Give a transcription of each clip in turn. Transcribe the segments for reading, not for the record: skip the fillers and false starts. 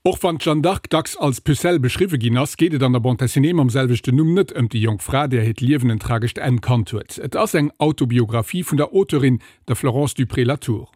Och wann d'Jeanne d'Arc dacks als Pucelle beschriwwe ginn ass, geet et an der Bande dessinée mam selwechten Numm net ëm déi jonk Fra, där hiert Liewen en tragescht Enn kannt huet. Et ass eng Autobiographie vun der Auteurin, der Florence Dupré-Latour.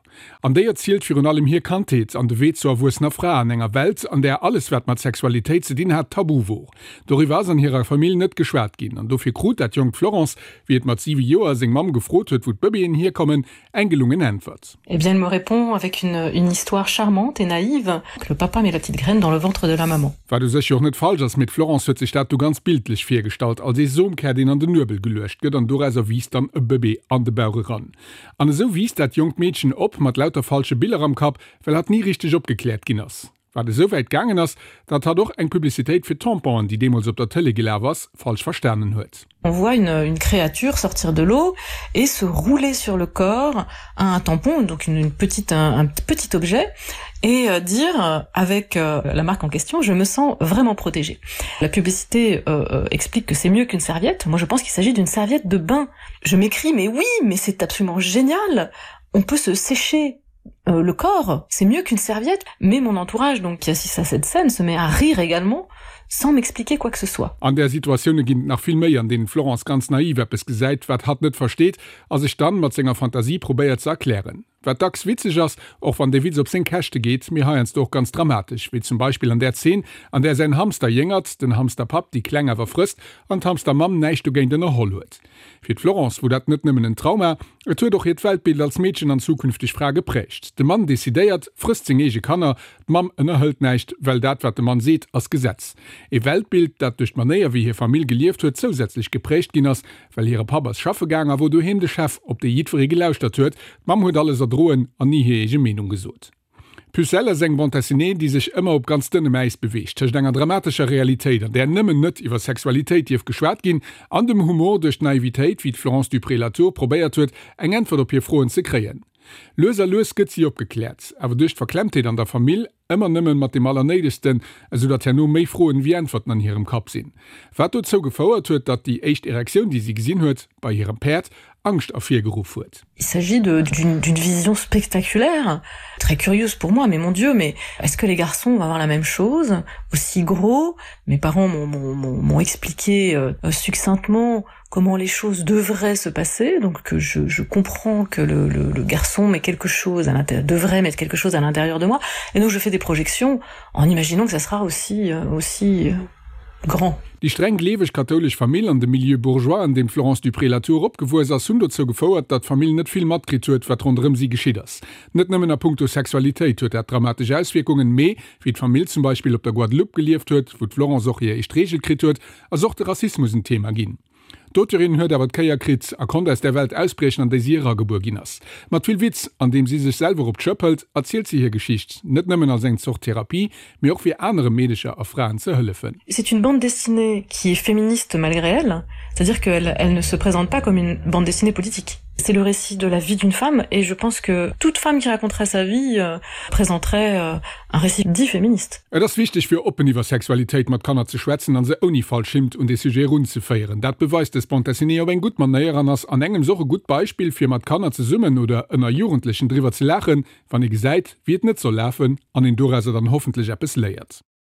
An déi erzielt virun allem hir Kandheet an de Wee zur erwuessener Fra an enger Welt, an där alles wat mat Sexualitéit ze dinn hat, tabu wor. Doriwwer ass an hirer Famill net geschwat ginn an dofir krut dat jonkt Florence, wéi et mat 7 Joer seng Mamm gefrot huet, wou d'Bëbeeën hierkommen, eng gelungen Äntwert. Eh bien, elle me répond avec une, une histoire charmante et naïve, que le papa met la petite graine dans le ventre de la maman. Wat u sech jo och net falsch ass, mee d'Florence huet sech dat du ganz bildlech virgestallt, als ee Somkär, deen an den Nuebel geluecht gëtt an dorauser wiisst dann e Bëbee an de Bauch eran. An esou wiisst dat jonkt Meedchen op, mat lauter falsche Biller am Kapp, well hatt ni richteg opgekläert ginn ass. Wat esou wäit gaangen ass, datt hatt och eng Publicitéit fir Tamponen, déi deemools op der Tëlee gelaf ass, falsch verstanen huet. On voit une, une créature sortir de l'eau et se rouler sur le corps un tampon, donc une, une petite, un, un petit objet et euh, dire euh, avec euh, la marque en question je me sens vraiment protégée. La publicité euh, euh explique que c'est mieux qu'une serviette. Moi je pense qu'il s'agit d'une serviette de bain. Je m'écris mais oui, mais c'est absolument génial. On peut se sécher euh, le corps, c'est mieux qu'une serviette, mais mon entourage donc qui assiste à cette scène se met à rire également sans m'expliquer quoi que ce soit. An där Situatioune ginn et nach vill méi, an deenen d'Florence ganz naiv eppes gesäit, wat hatt net versteet, a sech dann mat senger Fantasie probéiert ze erklären. Wat dacks witzeg ass, och wann dee Witz op seng Käschte geet, mee heiansdo och ganz dramatesch, wéi zum Beispill an där Zeen, an där säin Hamster jéngert, den Hamsterpapp déi Kleng awer frësst an d'Hamstermamm näischt dogéint ënnerholl huet. Fir d'Florence wor dat net nëmmen en Trauma, et huet och hiert Weltbild als Meedchen an zukünfteg Fra geprägt. De Mann decidéiert, frësst seng eege Kanner, d'Mamm ënnerhëlt näischt, well dat wat de Mann seet, ass Gesetz. E Weltbild, dat duerch d'Manéier wéi hir Famill gelieft huet zousätzlech geprägt ginn ass, well hire Papp ass schaffe gaang a wor doheem de Chef, op dee jiddweree gelauschtert huet. D'Mamm huet alles erdroen an ni hir eege Meenung gesot. D'Pucelle ass eng Bande dessinée, déi sech ëmmer op ganz dënnem Äis beweegt, tëscht enger dramatescher Realitéit, an där nëmmen net iwwer Sexualitéit dierf geschwat ginn, an dem Humor duerch d'Naivitéit, wéi d'Florence Dupré-Latour probéiert huet, eng Äntwert op hir Froen ze kréien. Lues a lues gëtt si opgekläert, awer duerch d'Verklemmtheet an der Famill ëmmer nëmmen mat deem Allernéidegsten, esou datt herno méi Froen wéi Äntwerten an hirem Kapp sinn. Wat dozou gefouert huet, datt déi éischt Erektioun, déi si gesinn huet, bei hirem Päerd Angscht ervirgeruff huet. Il s'agit d'une vision spectaculaire, très curieuse pour moi, mais mon Dieu, mais est-ce que les garçons vont avoir la même chose, aussi gros? Mes parents m'ont expliqué euh, succinctement comment les choses devraient se passer, donc que je, je comprends que le, le, le garçon met quelque chose à l'intérieur, devrait mettre quelque chose à l'intérieur de moi, et donc je fais des projections en imaginant que ça sera aussi, euh, aussi euh, grand. Déi streng gleeweg kathoulesch Famill an de Milieu bourgeois, an deem d'Florence Dupré-Latour opgewuess ass, hunn dozou gefouert, datt d'Famill net vill matkritt huet, wat ronderëm si geschitt ass. Net nëmmen a puncto Sexualitéit huet dat dramatesch Auswierkungen, mee wéi d'Famill zum Beispill op der Guadeloupe gelieft huet, wou d'Florence och hir éischt Reegel kritt huet, ass och de Rassismus en Thema ginn. D'Auteurin huet awer d'Kéier kritt a konnt aus där Welt ausbriechen, an déi si eragebuer ginn ass. Mat vill Witz, an deem si sech selwer op d'Schëpp hëlt, erzielt si hir Geschicht, net nëmmen als eng Zort Therapie, mee och fir anere Meedecher a Fraen ze hëllefen. C'est une bande dessinée qui est féministe malgré elle, c'est-à-dire qu'elle elle ne se présente pas comme une bande dessinée politique. C'est le récit de la vie d'une femme et je pense que toute femme qui raconterait sa vie euh, présenterait euh, un récit dit féministe. Et ass wichteg fir oppen iwwer Sexualitéit mat Kanner ze schwätzen an se ouni falsch Hint un dee Sujet erunzeféieren. Dat beweist dës Bande dessinée op eng gutt Manéier an ass an engems och e gutt Beispill fir mat Kanner zesummen oder ënner Jugendlechen driwwer ze laachen, wann ee gesäit wéi et net soll lafen an een dorauser dann hoffentlech eppes léiert.